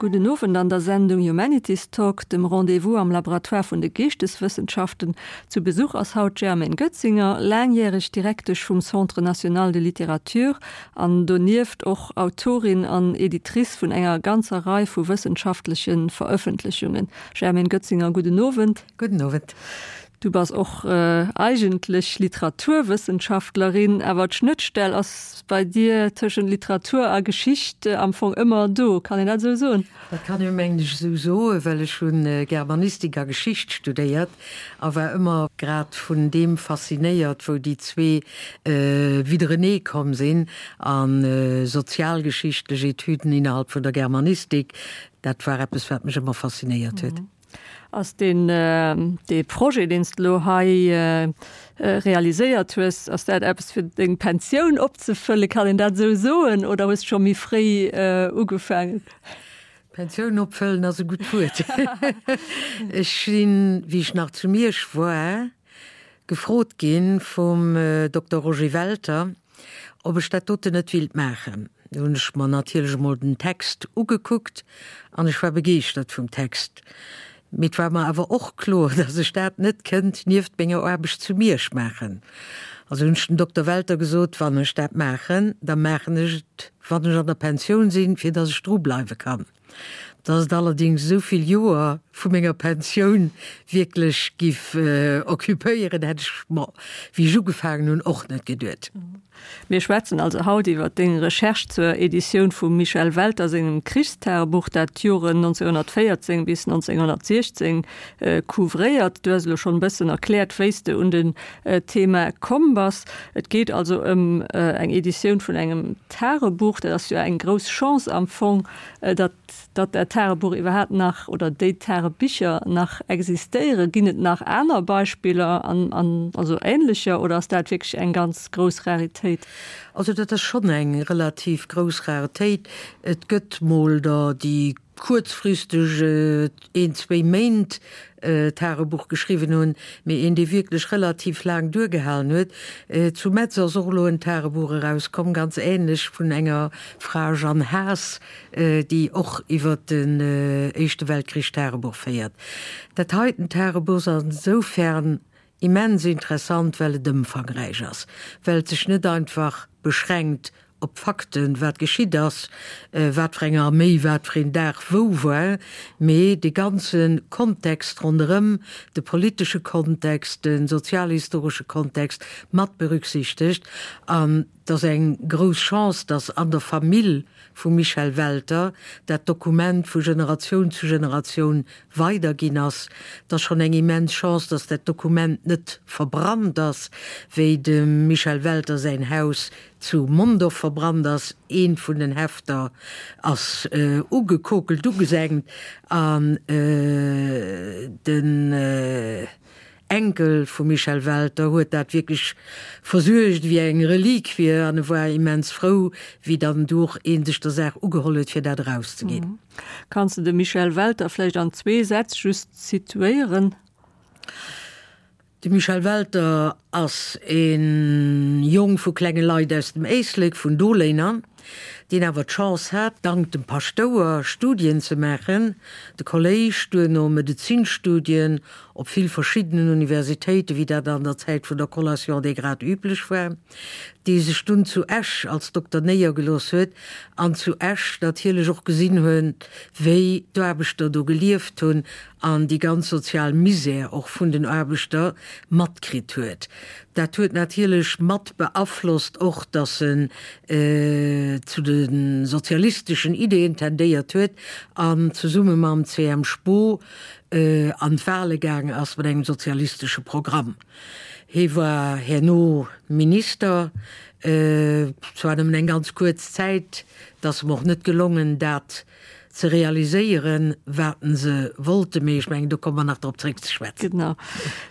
Gudden Owend an der Sendung Humanities Talk, dem Rendez-vous am Laboratoire vun de Geeschteswëssenschaften. Zu Besuch ass haut d'Germaine Goetzinger, laangjäreg Direktesch vum Centre national de littérature an donieft och Autorin an Editrice vun enger ganzer Rei vu wëssenschaftleche Verëffentlechungen. Germaine Goetzinger, gudden Owend. Gudden Owend. Du bass och eigentlech Literaturwëssenschaftlerin, awer d'Schnëttstell ass bei dir tëschent Literatur a Geschicht am Fong ëmmer do. Kann een dat esou soen? Dat kann een, mengen ech, esou soen, well ech hu Germanistik a Geschicht studéiert a war ëmmer grad vun deem faszinéiert, wou déi zwee widderenee komm sinn. A sozialgeschichtlech Etüden innerhalb vun der Germanistik, dat war eppes, wat mech ëmmer faszinéiert huet. Ass deen dee Projet, deen s de elo hei realiséiert hues, ass dat eppes fir deng Pensioun opzefëllen, kann een dat esou soen, oder hues de scho méi fréi ugefaangen? Pensioun opfëllen ass e gutt Wuert. Ech sinn, wéi ech nach zu Miersch war, gefrot gi vum Dokter Roger Welter, ob ech dat doten net willt maachen. Do hunn ech mer natierlech emol den Text ugekuckt an ech war begeeschtert vum Text. Mee et war mer awer och kloer, dass ech dat net kënnt nieft menger Aarbecht zu Miersch maachen. Also hunn ech dem Dokter Welter gesot, wann ech dat maachen, da maachen ech et, wann ech an der Pensioun sinn, fir dass ech dru bleiwe kann. Dass et allerdings esou vill Joer vu menger Pensioun wierklech giff occupéieren, hätt ech mer, wéi ech ugefaangen hunn, och net geduet. Mir schwätzen also haut iwwer deng Recherche zur Editioun vum Michel Welter sengem Krichstagebuch, dat d'Joren 1914 bis 1916 couvréiert. Du hues elo schonn e bëssen erkläert, wéi s de un den Thema komm bass. Et geet also ëm eng Editioun vun engem Tagebuch. Dat ass jo eng grouss Chance am Fong, datt datt dat Tagebuch iwwerhaapt nach oder déi Tagebicher nach existéieren. Ginn et nach aner Beispiller an an also änlecher oder ass dat wierklech eng ganz grouss Raritéit? Also dat ass schonn eng relativ grouss Raretéit. Et gëtt mol der, déi kuerzfristeg een, zwéi Méint Tagebuch geschriwwen hunn, mee een, dee wierklech relativ laang duergehalen huet. Zu Metz ass och elo en Tagebuch erauskomm, ganz änlech, vun enger Fra, Jeanne Haas, déi och iwwer den Éischte Weltkrich Tagebuch féiert. Dat heiten Tagebuch ass insoufern immens interessant, well et ëmfangräich ass, well et sech net einfach beschränkt op d'Fakten, wat geschitt ass, wat fir eng Arméi wat fir een Dag wou war, mee de ganze Kontext ronderëm, de politesche Kontext, de sozialhistoresche Kontext mat berücksichtegt. An et ass eng grouss Chance, datt an der Famill vum Michel Welter dat Dokument vu Generatioun zu Generatioun weiderginn ass. Et ass schonn eng immens Chance, datt dat Dokument net verbrannt ass, wéi dem Michel Welter säin Haus zu Mondorf verbrannt ass. Eent vun den Hefter ass ugekokelt, ugesengt an den Enkel vum Michel Welter huet dat wierklech versuergt ewéi eng Reliquie an e war immens frou, wéi dann du och ee sech der Saach ugeholl huet, fir dat erauszeginn. Kanns de de Michel Welter vläicht an zwee Sätz just situéieren? De Michel Welter ass e Jong vu klenge Leit aus dem Éislek, vun Doléiner, deen awer d'Chance hat, dank dem Paschtouer Studien ze maachen, de Kolléisch, duerno Medezinstudien op vill verschiddenen Universitéiten, wéi dat an der Zäit vun der Collation des grades üblech war, dee sech dunn zu Esch als Dokter néiergelooss huet an zu Esch natierlech och gesinn huet, wéi d'Aarbechter do gelieft hunn an déi ganz sozial Misär och vun den Aarbechter matkritt huet. Dat huet natierlech mat beaflosst och, datt en zu de sozialisteschen Ideeën tendéiert huet an zesumme mam CM. Spoo an d'Wale gaang ass mat engem sozialistesche Programm. Hie war herno Minister, zwar nëmmen eng ganz kuerz Zäit, et ass em och net gelongen, dat ze realiséieren, wat se wollten, mee ech mengen, do komme mer nach drop zréck ze schwätzen. Genau.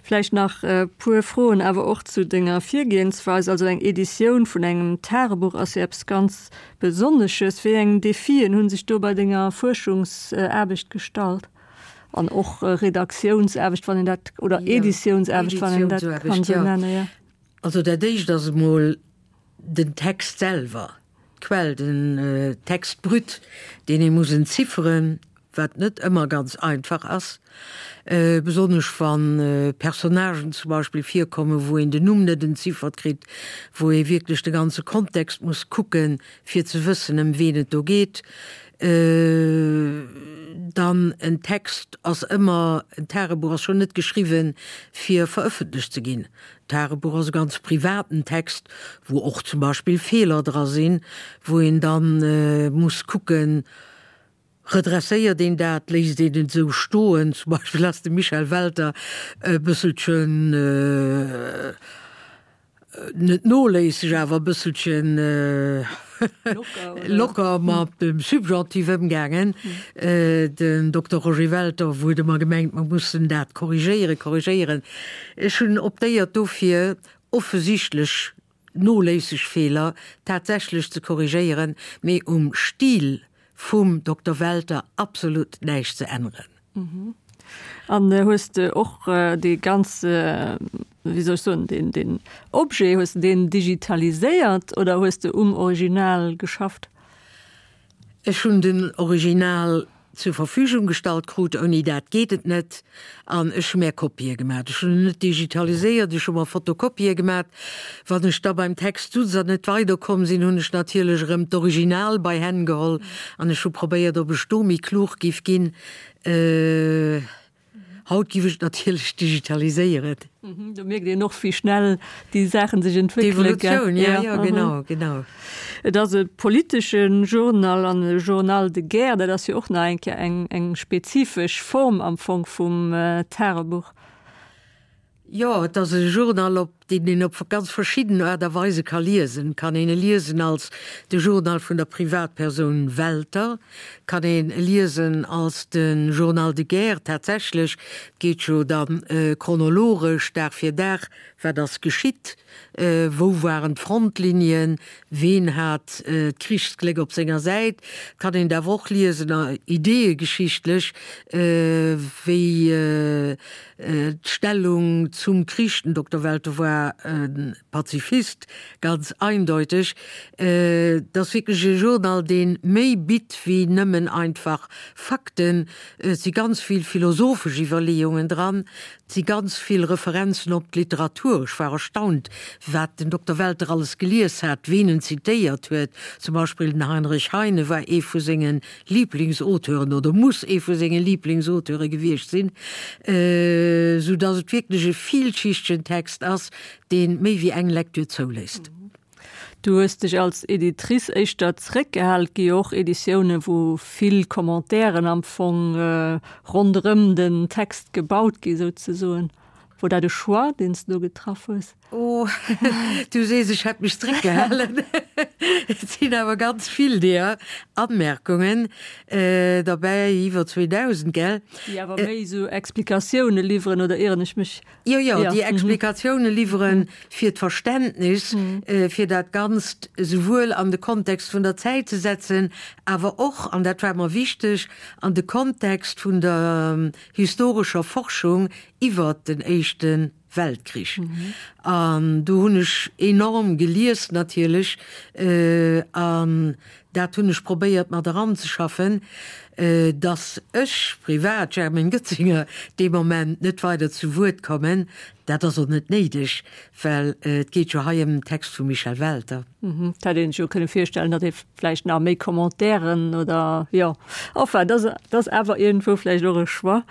Vläicht nach e puer Froen awer och zu denger Virgehensweis. Also eng Editioun vun engem Tagebuch ass jo eppes ganz Besonnesches. Wéi eng Defien hu sech do bei denger Fuerschungsaarbecht gestallt? An och Redaktiounsaarbecht, wann een dat, oder Editiounsaarbecht, wann een dat kann esou nennen, jo. Also dat Éischt ass emol den Text selwer. D'Quell, den Text brut, deen ee muss entzifferen, wat net ëmmer ganz einfach ass, besonnesch wa Personnagen zum Beispill virkommen, wou een den Numm net entziffert kritt, wou ee wierklech de ganze Kontext muss kucken, fir ze wëssen, ëm ween et do geet. Dann en Text ass ëmmer, en Tagebuch ass schonn net geschriwwen, fir verëffentlecht ze ginn. D'Tagebuch ass e ganz privaten Text, wou och zum Beispill Feeler dra sinn, wou een da muss kucken, redresséiert een dat, léisst een et esou stoen. Zum Beispill ass de Michel Welter e bësselchen, net noléisseg, awer e bësselchen locker mat dem Subjonctif ëmgaangen. Den Dokter Roger Welter huet ëmmer gemengt, mer mussen dat korrigéieren, korrigéieren. Ech hunn optéiert dofir, offesichtlech noléisseg Feeler tatsächlech ze korrigéieren, mee um Stil vum Dokter Welter absolut näischt ze änneren. An hues de och dee ganze, wéi soll ech soen, deen, deen Objet, hues de deen digitaliséiert oder hues de um Original geschafft? Ech hunn den Original zur Verfügung gestallt krut, ouni dat geet et net, an ech hu mär Kopië gemat. Ech hunn en net digitaliséiert, ech hu mer Fotokopië gemat. Wann ech da beim Text sutz an net weiderkomm sinn, hunn ech natierlech erëm d'Original bei Hänn geholl an ech hu probéiert, ob ech do méi klug giff ginn. Haut giff ech et natierlech digitaliséieren. Do mierkt een och, wéi schnell déi Saachen sech entwéckelen, gell? D'Evolutioun, jo, jo, genau, genau. Et ass e politesche Journal an e Journal de guerre, dat ass jo och nach eng Kéier eng, eng spezifesch Form am Fong vum Tagebuch. Jo, et ass e Journal, op deen een op ganz verschidden Aart a Weise ka liesen. Et kann een e liesen als de Journal vun der Privatpersoun Welter, et kann een e liesen als de Journal de guerre tatsächlech. Et geet jo da chronologesch, Dag fir Dag, wat ass geschitt, wou waren d'Frontlinien, ween hat d'Krichsgléck op senger Säit. Et kann een et awer och liesen ideeëgeschichtlech, wéi D'Stellung zum Krich, den Dokter Welter war e Pazifist, ganz eindeuteg. Et ass wierklech e Journal, dee méi bitt wéi nëmmen einfach Fakten. Et si ganz vill philosophesch Iwwerleeungen dran, et si ganz vill Referenzen op d'Literatur. Ech war erstaunt, wat den Dokter Welter alles gelies hat, ween en zitéiert huet. Zum Beispill den Heinrich Heine war ee vu sengen Liiblingsauteuren oder muss ee vu senge Liiblingsauteure gewiescht sinn, sou dass et wierklech e villschichtegen Text ass, dee méi wéi eng Lektür zouléisst. Du hues dech als Editrice éischter zeréckgehal. Et gi jo och Editiounen, wou vill Commentairen am Fong ronderëm den Text gebaut gi souzesoen. Wor dat e Choix, deen s de do getraff hues? Oh, du sees, ech hätt mech zréckgehalen. Et sinn awer ganz vill deeër Anmerkungen derbäi, iwwer 2.000, gell? Déi awer méi esou Explikatioune liwweren, oder ieren ech mech? Jo, jo, déi Explikatioune liwweren fir d'Verständnis, fir dat Ganzt esouwuel an de Kontext vun der Zäit ze setzen, awer och, an dat war mer wichteg, an de Kontext vun der historescher Forschung iwwert den Éischte Weltkrich. An do hunn ech enorm gelies natierlech an dat hunn ech probéiert mat eranzeschaffen, dass ech privat, Germaine Goetzinger, dee Moment net weider zu Wuert kommen. Dat ass och net néideg, well et geet jo hei ëm den Text vum Michel Welter. Et hätt een sech jo kënne virstellen, datt ee vläicht nach méi Commentairen oder jo, enfin, dat ass awer iergendwou vläicht och e Choix.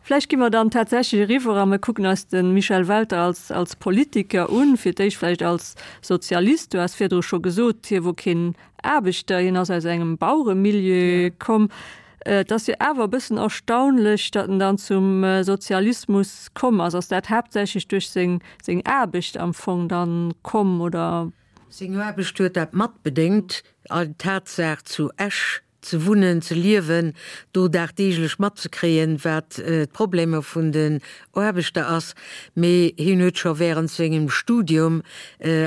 Vläicht gi mer dann tatsächlech eriwwer a mer kucken eis de Michel Welter als, als Politiker un, fir d'éischt vläicht als Sozialist. Du has virdru scho gesot, hie wor keen Aarbechter, hien ass aus engem Baueremilieu komm. Et ass jo awer e bëssen erstaunlech, datt en dann zum Sozialismus komm ass. Ass dat haaptsächlech duerch seng, seng Aarbecht am Fong dann komm, oder? Seng Aarbecht huet dat matbedéngt, d'Tatsaach zu Esch ze wunnen, ze liewen, do dagdeeglech matzekréien, wat d'Problemer vun den Aarbechter ass. Mee hien huet scho während sengem Studium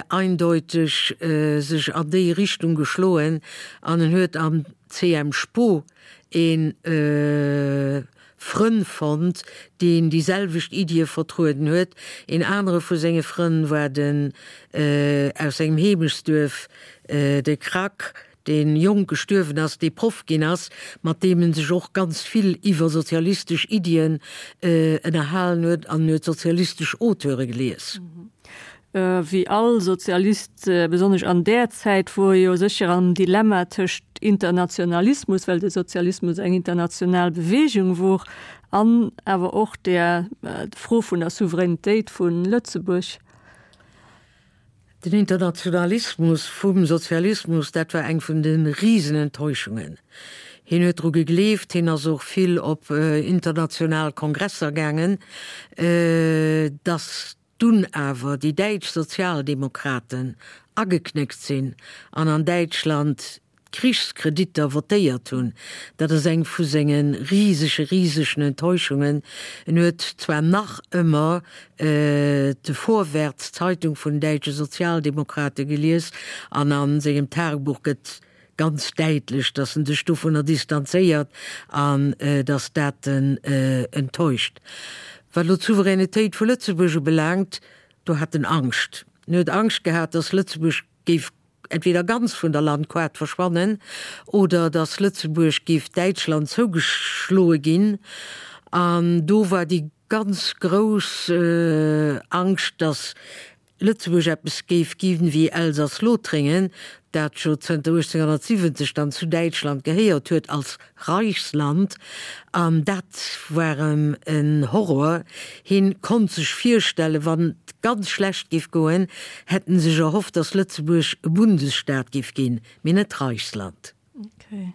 eindeuteg sech an déi Richtung geschloen an en huet am CM Spo ee. Frënn fonnt, deen déi selwecht Iddie vertrueden huet. Een anere vu senge Frënn war den aus sengem Heemechtsduerf, de Krack, dee jonk gestuerwen ass, dee Proff ginn ass, mat deem en sech och ganz vill iwwer sozialistesch Iddien ënnerhalen huet an en huet sozialistesch Auteure gelies. Wéi all Sozialist, besonnesch an där Zäit, wor e jo sécher am Dilemma tëscht Internationalismus, well de Sozialismus eng international Beweegung wor, an awer och der Fro vun der Souveränitéit vu Lëtzebuerg. Den Internationalismus vum Sozialismus, dat war eng vun de Risenenttäuschungen. Hien huet dru gegleeft, hien ass och vill op international Kongresser gaangen, datt dunn awer déi däitsch Sozialdemokraten ageknéckt sinn an an Däitschland d'Krichskreditter votéiert hunn, dat ass eng vu senge risege, risegen Enttäuschungen. En huet zwar nach ëmmer de Vorwärts, d'Zeitung vun den däitsche Sozialdemokrate gelies an a sengem Tagebuch gëtt ganz däitlech, datt en sech dovunner distanzéiert an datt dat en enttäuscht. Wat elo d'Souveränitéit vu Lëtzebuerg ubelaangt, do hat en Angscht. En huet Angscht gehat, datt Lëtzebuerg géif entweder ganz vun der Landkaart verschwannen oder datt Lëtzebuerg géif Däitschland zougeschloe ginn. An do war déi ganz grouss Angscht, datt Lëtzebuerg eppes géif ginn wéi Elsass-Lothringen, dat jo zënter 1870 dann zu Däitschland gehéiert huet als Reichsland, an dat war em en Horror. Hien konnt sech virstellen, wann et ganz schlecht géif goen, hätt en sech erhofft, datt Lëtzebuerg e Bundesstaat géif ginn, mee net Reichsland. Okay.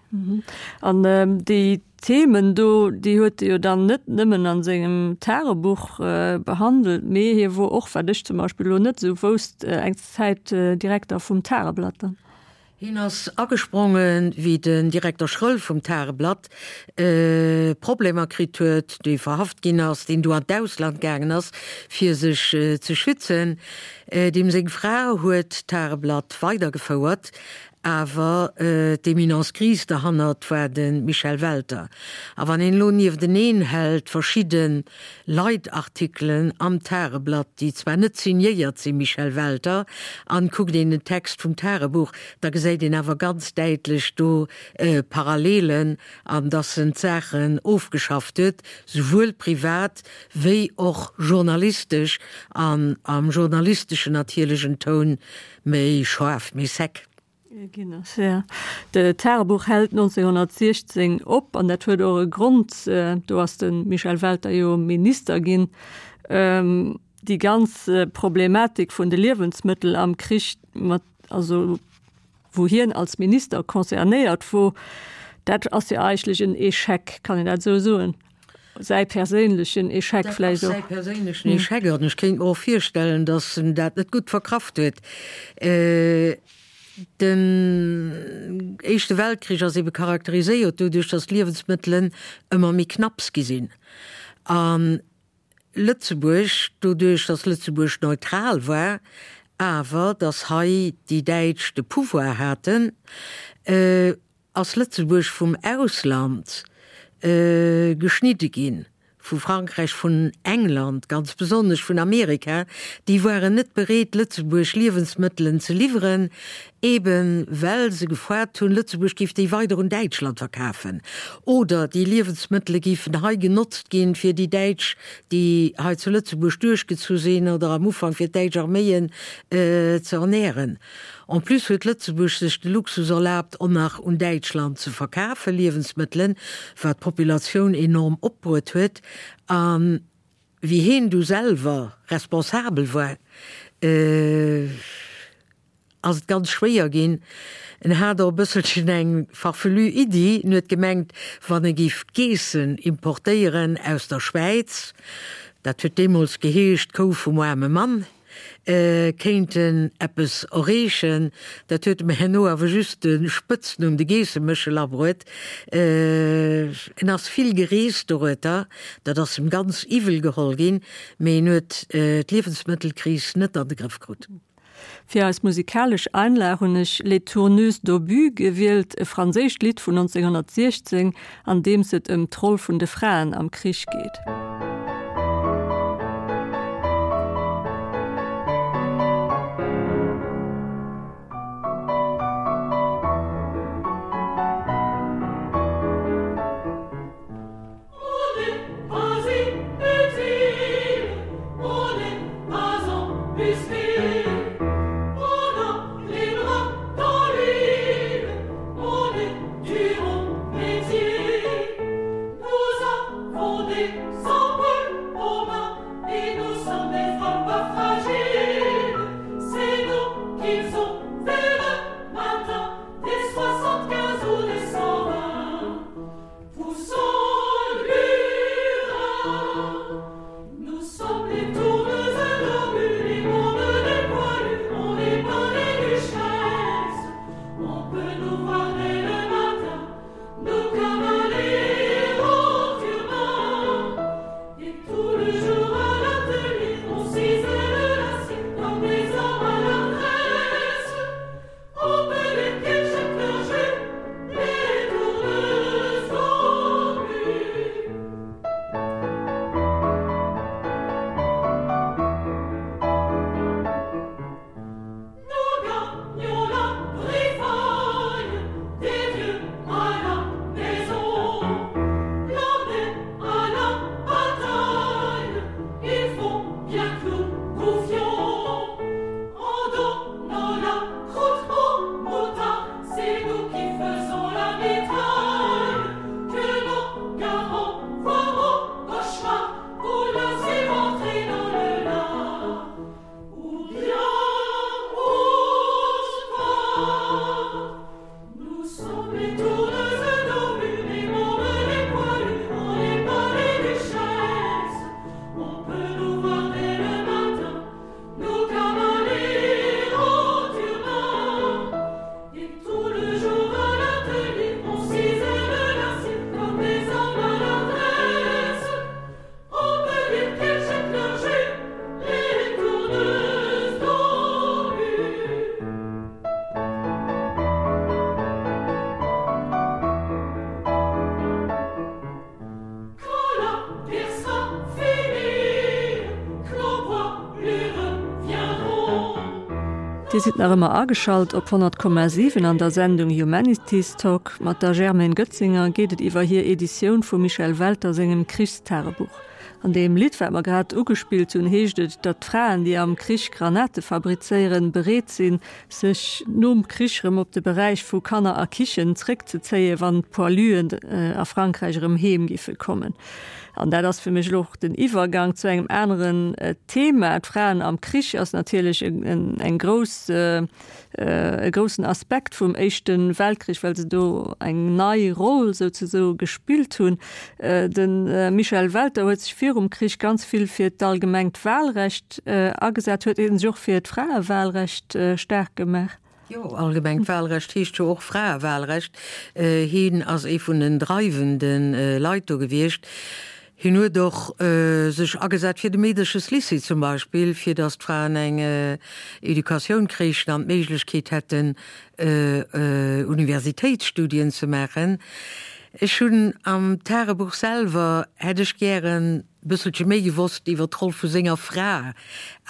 An déi Themen do, déi huet e jo dann net nëmmen a sengem Tagebuch behandelt, mee hie wor och, wat ech zum Beispill elo net esou wousst, eng Zäit Direkter vum Tageblatt dann. Hien ass agesprongen, wéi den Direkter Schröll vum Tageblatt Problemer kritt huet, dee verhaft ginn ass, deen du an d'Ausland gaangen ass, fir sech ze schützen. Deem seng Fra huet d'Tageblatt weidergefouert, awer d'Eminence grise derhannert war de Michel Welter. A wann een elo niefteneen hält verschidde Leitartikelen am Tageblatt, déi zwar net signéiert si Michel Welter, an kuckt een den Text vum Tagebuch, da gesäit een awer ganz däitlech do Parallelen an dass en d'Saachen ofgeschafft huet, souwuel privat wéi och journalistesch, an am journalisteschen natierlech en Toun méi schaarf, méi sec. Ginn ass. Ja. De Tagebuch hält 1916 op an dat huet och e Grond, do ass de Michel Welter jo Minister ginn. Déi ganz Problematik vun de Liewensmëttel am Krich mat, also wou hien als Minister concernéiert wor, dat ass jo eigentlech en Echec, kann een dat esou soen? Säi perséinlechen Echec vläicht och. Dat ass säi perséinlechen Echec an ech kéint mer och virstellen, datt en dat net gutt verkraft huet. Den Éischte Weltkrich ass ebe charakteriséiert doduerch, datt d'Liewensmëttelen ëmmer méi knapps gi sinn. A Lëtzebuerg, doduerch datt Lëtzebuerg neutral war, awer datt hei déi Däitsch de Pouvoir haten, ass Lëtzebuerg vum Ausland geschnidde ginn, vu Frankräich, vun England, ganz besonnesch vun Amerika, déi waren net bereet, Lëtzebuerg Liewensmëttelen ze liwweren, eben well se gefoart hunn, Lëtzebuerg géif déi weider un Däitschland verkafen oder déi Liewensmëttele géifen hei genotzt ginn, fir déi Däitsch, déi hei zu Lëtzebuerg duerchgezu sinn oder am Ufank fir d'däitsch Arméien ze ernähren. En plus huet Lëtzebuerg sech de Luxus erlaabt, och nach un Däitschland ze verkafe Liewensmëttelen, wat d'Populatioun enorm opbruet huet. A wéi heen du selwer responsabel war, ass et ganz schwéier ginn. En hat och e bësselchen eng farfelue Iddi, en huet gemengt, wann e géif Geessen importéieren aus der Schwäiz, dat huet deemools geheescht, d'Kou vum aarme Mann, kéinten eppes erreechen. Dat huet em herno awer just de Spëtznumm de Geesseméchel abruet. En ass vill gereest dorueter, dat ass em ganz iwwel geholl ginn, mee en huet d'Liewensmëttelkris net an de Grëff krut. Fir eis musikalesch Einlag hunn ech Les Tourneuses d'Obus gewielt, e franséischt Lidd vun 1916, an deems et ëm d'Roll vun de Fraen am Krich geet. Dir sidd nach ëmmer ageschalt op 100,7 an der Sendung Humanities Talk. Mat der Germaine Goetzinger geet et iwwer hir Editioun vum Michel Welter sengem Krichstagebuch. An deem Lidd, wat mer grad ugespillt hunn, heescht et, datt d'Fraen, déi am Krich Granate fabrizéieren, bereet sinn, sech nom Krich erëm op de Beräich vu Kanner a Kichen zréckzezéien, wann d'Poiluen a Frankräich erëm heem giffe kommen. An dat ass fir mech elo och den Iwwergang zu engem aneren Thema. D'Fraen am Krich ass natierlech eng grouss, e groussen Aspekt vum Éischte Weltkrich, well se do eng nei Roll souzesoe gespillt hunn. De Michel Welter huet sech virum Krich ganz vill fir d'allgemengt Wahlrecht agesat. Huet hie sech och fir d'Fraewahlrecht staark gemaach? Jo, allgemengt Wahlrecht heescht jo och Fraewahlrecht. Hien ass ee vun den dreiwende Leit do gewiescht. Hien huet och sech agesat fir de Meedercheslycée zum Beispill, fir datt d'Fraen eng Educatioun kréichen an d'Méiglechkeet hätten, Universitéitsstudien ze maachen. Ech hunn am Tagebuch selwer, hätt ech gären e bësselche méi gewosst iwwer d'Roll vu senger Fra,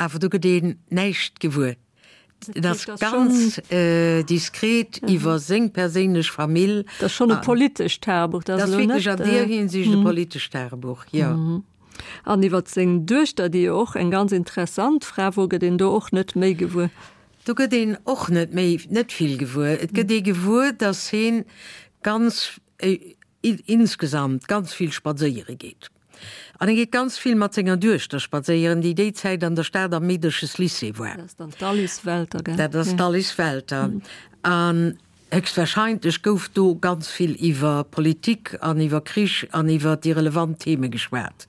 awer do gëtt een näischt gewuer. Et ass ganz diskret iwwer seng perséinlech Famill. Dat ass schonn e politescht Tagebuch. Dat ass wierklech an deer Hinsicht e politescht Tagebuch, jo. An iwwer seng Duechter, déi jo och eng ganz interessant Fra wor, gëtt een do och net méi gewuer. Do gëtt een och net méi, net vill gewuer. Et gëtt ee gewuer, datt hien ganz, insgesamt ganz vill spadséiere geet. An e geet ganz vill mat senger Duechter spadséieren, déi déi Zäit an der Stad am Meedercheslycée war. Dat ass dann d'Alice Welter, gell? Dat ass d'Alice Welter. An héchstwahrscheinlech gouf do ganz vill iwwer Politik an iwwer Krich an iwwer déi relevant Theme geschwat.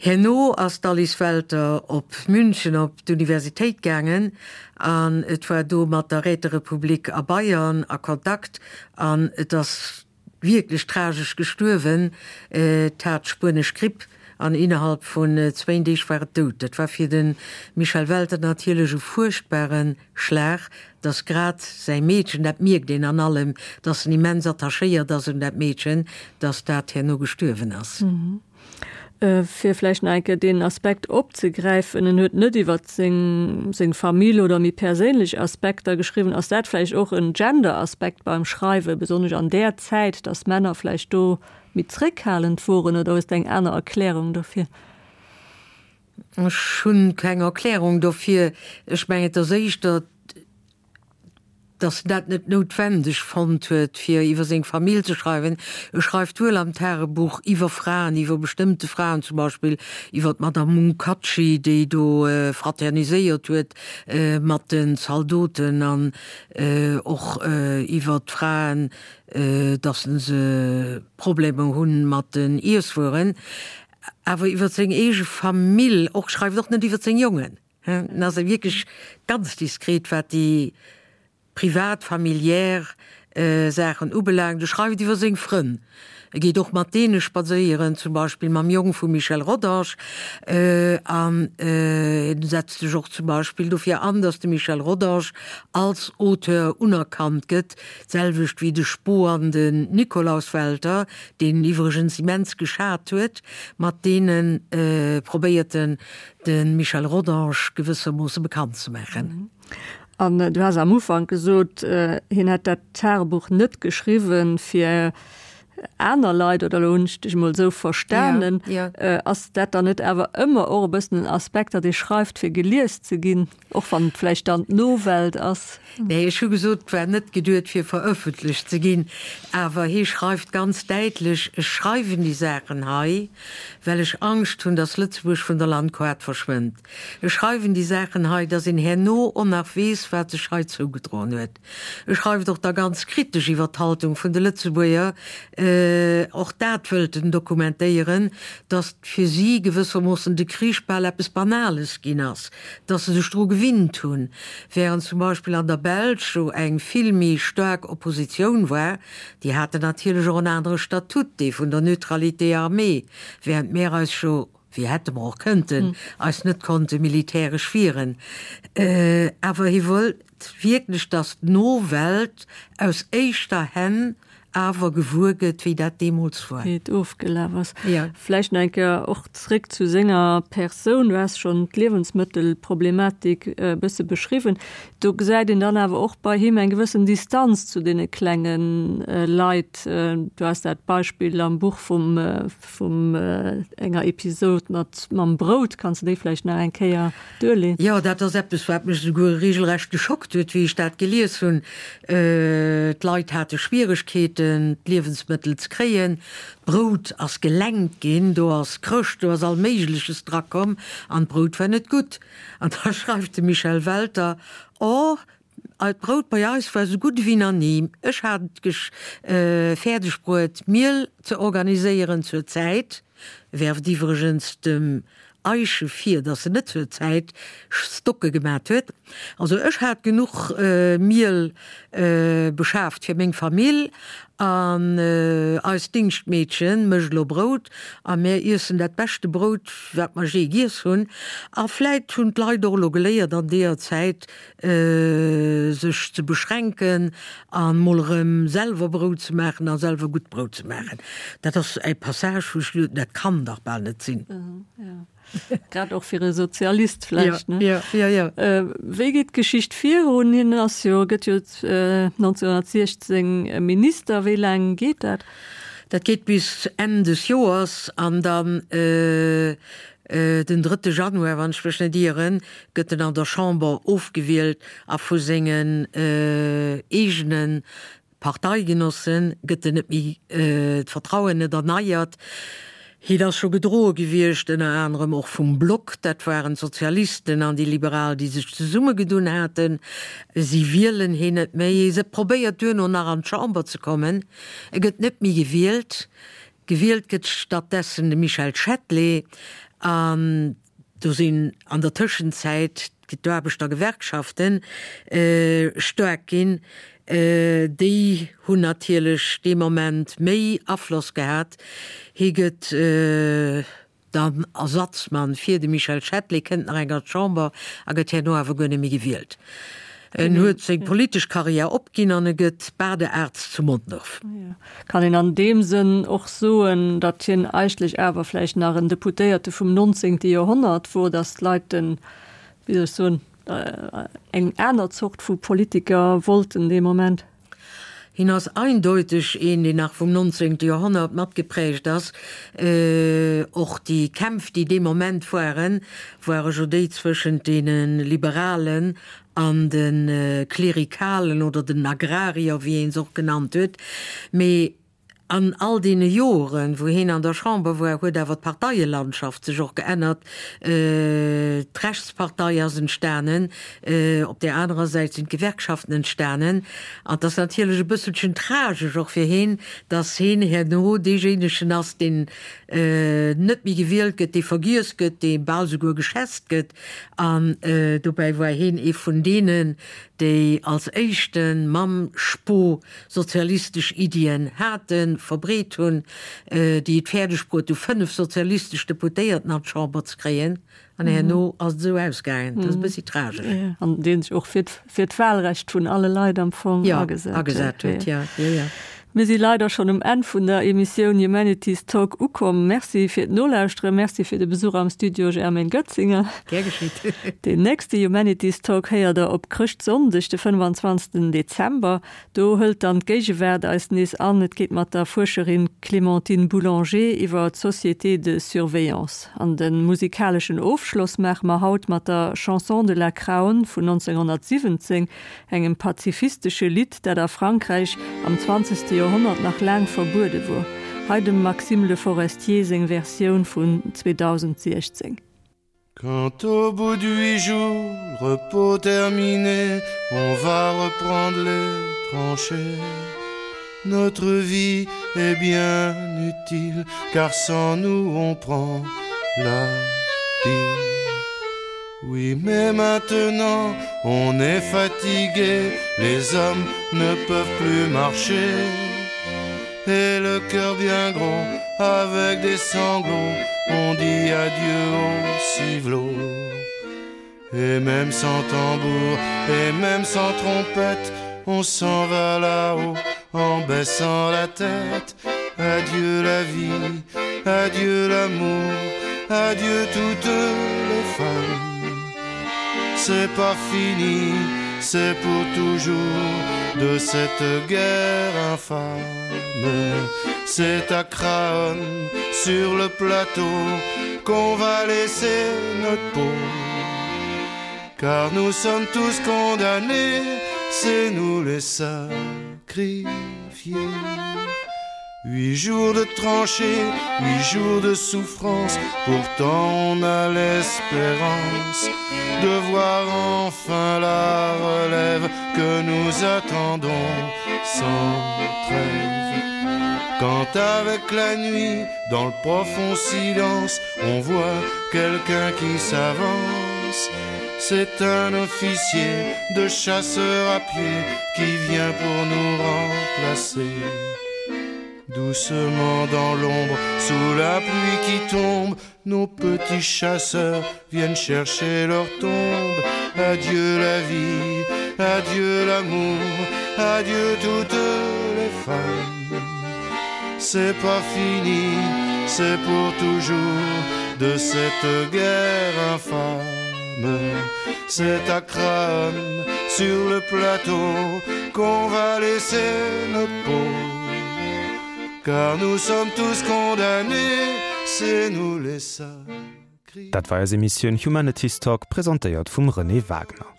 Herno ass d'Alice Welter op München op d'Universitéit gaangen an et war do mat der Räterepublik a Bayern a Kontakt an et ass wierklech tragesch gestuerwen. Et hat d'spuenesch Gripp. An innerhalb vun zwéin Deeg war et dout. Dat war fir de Michel Welter natierlech e fuerchtbare Schlag, dass grad säi Meedchen, dat mierkt een an allem, dass en immens attachéiert ass un dat Meedchen, dass dat herno gestuerwen ass. Fir vläicht nach eng Kéier deen Aspekt opzegräifen, en huet net iwwer seng seng Famill oder méi perséinlech Aspekter geschriwwen. Ass dat vläicht och en Gender-Aspekt beim Schreiwen, besonnesch an där Zäit, dass Männer vläicht do méi zréckhalend woren, oder hues de eng aner Erklärung dofir? Ech hunn keng Erklärung dofir. Ech mengen, et ass éischter, dass en dat net noutwendeg fonnt huet, fir iwwer seng Famill ze schreiwen. E schreift wuel am Tagebuch iwwer Fraen, iwwer bestëmmte Fraen, zum Beispill iwwer d'Madame Munkaczy, déi do fraterniséiert huet mat den Zaldoten, an och iwwer d'Fraen, dass se Problemer hunn mat den Iesswueren. Awer iwwer seng eege Famill och, schreift och net iwwer seng Jongen. En ass wierklech ganz diskret, wat déi privat, familiär Saachen ubelaangt. E schreift iwwer seng Frënn. E geet och mat deene spadséieren, zum Beispill mam Jong vum Michel Rodange. An en setzt sech och zum Beispill dofir an, datt de Michel Rodange als Auteur unerkannt gëtt, d'selwecht wéi de Spo an den Nikolaus Welter, deen en iwwregens immens geschat huet. Mat deene probéiert en, de Michel Rodange gewëssermoosse bekannt ze maachen. An du has am Ufank gesot, hien hätt dat Tagebuch net geschriwwen fir aner Leit, oder elo hunn ech dech emol esou verstanen. Ass dat dann net awer ëmmer och e bëssen en Aspekt, datt ee schreift fir gelies ze ginn, och wann et vläicht dann d'Nowelt ass? Nee, ech hu gesot, et war net geduet fir verëffentlecht ze ginn, awer hie schreift ganz däitlech, Ech schreiwen déi Saachen hei, well ech Angscht hunn, datt Lëtzebuerg vun der Landkaart verschwënnt. Ech schreiwen déi Saachen hei, datt een herno och nach weess, wat sech hei zougedroen huet. E schreift och da ganz kritesch iwwer d'Haltung vun de Lëtzebuerger, och dat wëllt en dokumentéieren, datt fir si gewëssermoossen de Krich bal eppes Banales ginn ass, datt se sech dru gewinnt hunn, während zum Beispill an der Belsch jo eng vill méi staark Oppositioun war, déi haten natierlech och en anere Statut, dee vun der Neutralité armée, während mär eis jo, wéi hätte mer och kënnten, eis net konnte militäresch wieren. Awer hie wollt wierklech, datt d'Nowelt aus éischter Hänn awer gewuer gëtt, wéi dat deemools war. Wéi et ofgelaf ass. Ja. Vläicht nach eng Kéier och zréck zu senger Persoun. Du has schonn d'Liewensmëttelproblematik e bësse beschriwwen. Do gesäit een dann awer och bei him eng gewëssen Distanz zu deene klenge Leit. Du has dat Beispill am Buch vum, vum enger Episod mat, mam Brout. Kanns de déi vläicht nach eng Kéier duerleen? Jo, dat ass eppes, wat mech esouguer regelrecht geschockt huet, wéi ech dat gelies hunn. D'Leit hate Schwieregkeeten, d'Liewensmëttel ze kréien. D'Brout ass gelenkt ginn, do ass Chrëscht, do ass all Méigleches drakomm an d'Brout war net gutt. An da schreift de Michel Welter, Oh, d'Brout bei eis war esou gutt ewéi nach ni. Ech hat et fäerdeg bruet, Miel ze organiséieren zur Zäit. Werft iwwregens dem Eische vir, dass se net zur Zäit Stocke gemat huet. Also ech hat genuch Miel beschaaft fir meng Famill an eist Dingschtmeedchen mécht elo Brout a mär iessen dat beschte Brout, wat mer jee giess hunn. A vläit hunn d'Leit och elo geléiert an deeër Zäit sech ze beschränken an mol erëm selwer Brout ze maachen a selwer gutt Brout ze maachen. Dat ass e Passage, wou ech geduet hunn, dat kann dach bal net sinn. Grad och fir e Sozialist vläicht, ne? Ja, ja, ja. Wéi geet d'Geschicht virun? Hien ass jo, gëtt jo 1916 Minister. Wéi laang geet dat? Dat geet bis Enn des Joers an dann den drëtte Januar, wann ech mech net ieren, gëtt en an der Chamber ofgewielt a vu sengen eegene Parteigenossen gëtt en net méi, d'Vertrauen net erneiert. Hien ass scho gedroe gewiescht, ënner anerem och vum Block, dat waren d'Sozialisten an déi Liberal, déi sech zesummegedunn haten. Si wielen hien net méi. Hie probéiert duerno nach an d'Chamber ze kommen, e gëtt net méi gewielt. Gewielt gëtt stattdessen de Michel Chatelet an do sinn an der Tëschenzäit d'Aarbechtergewerkschafte staark ginn. Déi hunn natierlech dee Moment méi Afloss gehat. Hie gëtt. dann Ersatzmann fir de Michel Chatelet, kënnt nach eng an d'Chamber a gëtt herno awer guer net méi gewielt. En huet seng politesch Karriär opginn an e gëtt Badearzt zu Mondorf. Kann een an deem Sënn och soen, datt hien eigentlech awer vläicht nach en Deputéierte vum 19. Joerhonnert wor, datt d'Leit den, wéi soll ech soen, eng aner Zort vu Politiker wollten dee Moment? Hien ass eindeuteg een, deen nach vum 19. Joerhonnert matgeprägt ass. Och déi Kämpf, déi dee Moment waren, ware jo déi zwëschent deene Liberalen an de Klerikalen oder den Agrarier, wéi ee se och genannt huet. Mee An all deene Joren, wou heen an der Chamber war, huet awer d'Parteielandschaft sech och geännert. D'Rechtspartei ass entstanen, op där anerer Säit sinn d'Gewerkschaften entstanen. An et ass natierlech e bësselchen tragesch och fir heen, datt heen herno deejéinegen ass, deen net méi gewielt gëtt, dee vergiess gëtt, dee bal souguer geschätzt gëtt. An dobäi war heen ee vun deenen, déi als éischte mam Spo sozialistesch Iddien haten, verbreet hunn, déi et fäerdeg bruet hu 5 sozialistesch Deputéierten an d'Chamber ze kréien, an herno ass et esou ausgaangen. Dat ass e bëssi tragesch. An dee sech och fir fir d'Wahlrecht vun alle Leit am Fong agesat huet. Agesat huet, jo, jo, jo. Mir si leider schonn um Enn vun der Emissioun Humanities Talk ukomm. Merci fir d'Nolauschteren, Merci fir de Besuch am Studio Germaine Goetzinger. Gär geschitt. Deen nächste Humanities Talk héiert der op Chrëschtsonndeg, de 25. Dezember. Do hëlt dann d'Géigewaart eis nees an. Et geet mat der Fuerscherin Clémentine Boulanger iwwer d'Sociétés de surveillance. An de musikaleschen Ofschloss maache mer haut mat der Chanson de la Craonne vun 1917, engem pazifistesche Lidd, dat a Frankräich am zwanzegste Joerhonnert nach laang verbuede wor. Hei dem Maxime Le Forestier seng Versioun vun 2016. Quand au bout d'huit jours, repos terminé, on va reprendre les tranchées. Notre vie est bien utile, car sans nous on prend la pile. Oui, mais maintenant on est fatigué, les hommes ne peuvent plus marcher. Et le cœur bien gros, avec des sanglots, on dit adieu au civelot. Et même sans tambour, et même sans trompette, on s'en va là-haut en baissant la tête. Adieu la vie, adieu l'amour, adieu toutes les femmes. C'est pas fini, c'est pour toujours de cette guerre infâme. C'est à Craonne, sur le plateau, qu'on va laisser notre peau. Car nous sommes tous condamnés, c'est nous les sacrifiés. Huit jours de tranchées, huit jours de souffrance, pourtant on a l'espérance de voir enfin la relève que nous attendons sans trêve. Quand avec la nuit, dans le profond silence, on voit quelqu'un qui s'avance, c'est un officier de chasseur à pied qui vient pour nous remplacer. Doucement dans l'ombre, sous la pluie qui tombe, nos petits chasseurs viennent chercher leur tombe. Adieu la vie, adieu l'amour, adieu toutes les femmes. C'est pas fini, c'est pour toujours de cette guerre infâme. C'est à Craonne, sur le plateau, qu'on va laisser notre peau. Car nous sommes tous condamnés, c'est nous les sacrifiés. Dat war eis Emissioun Humanities Talk, presentéiert vum Renée Wagner.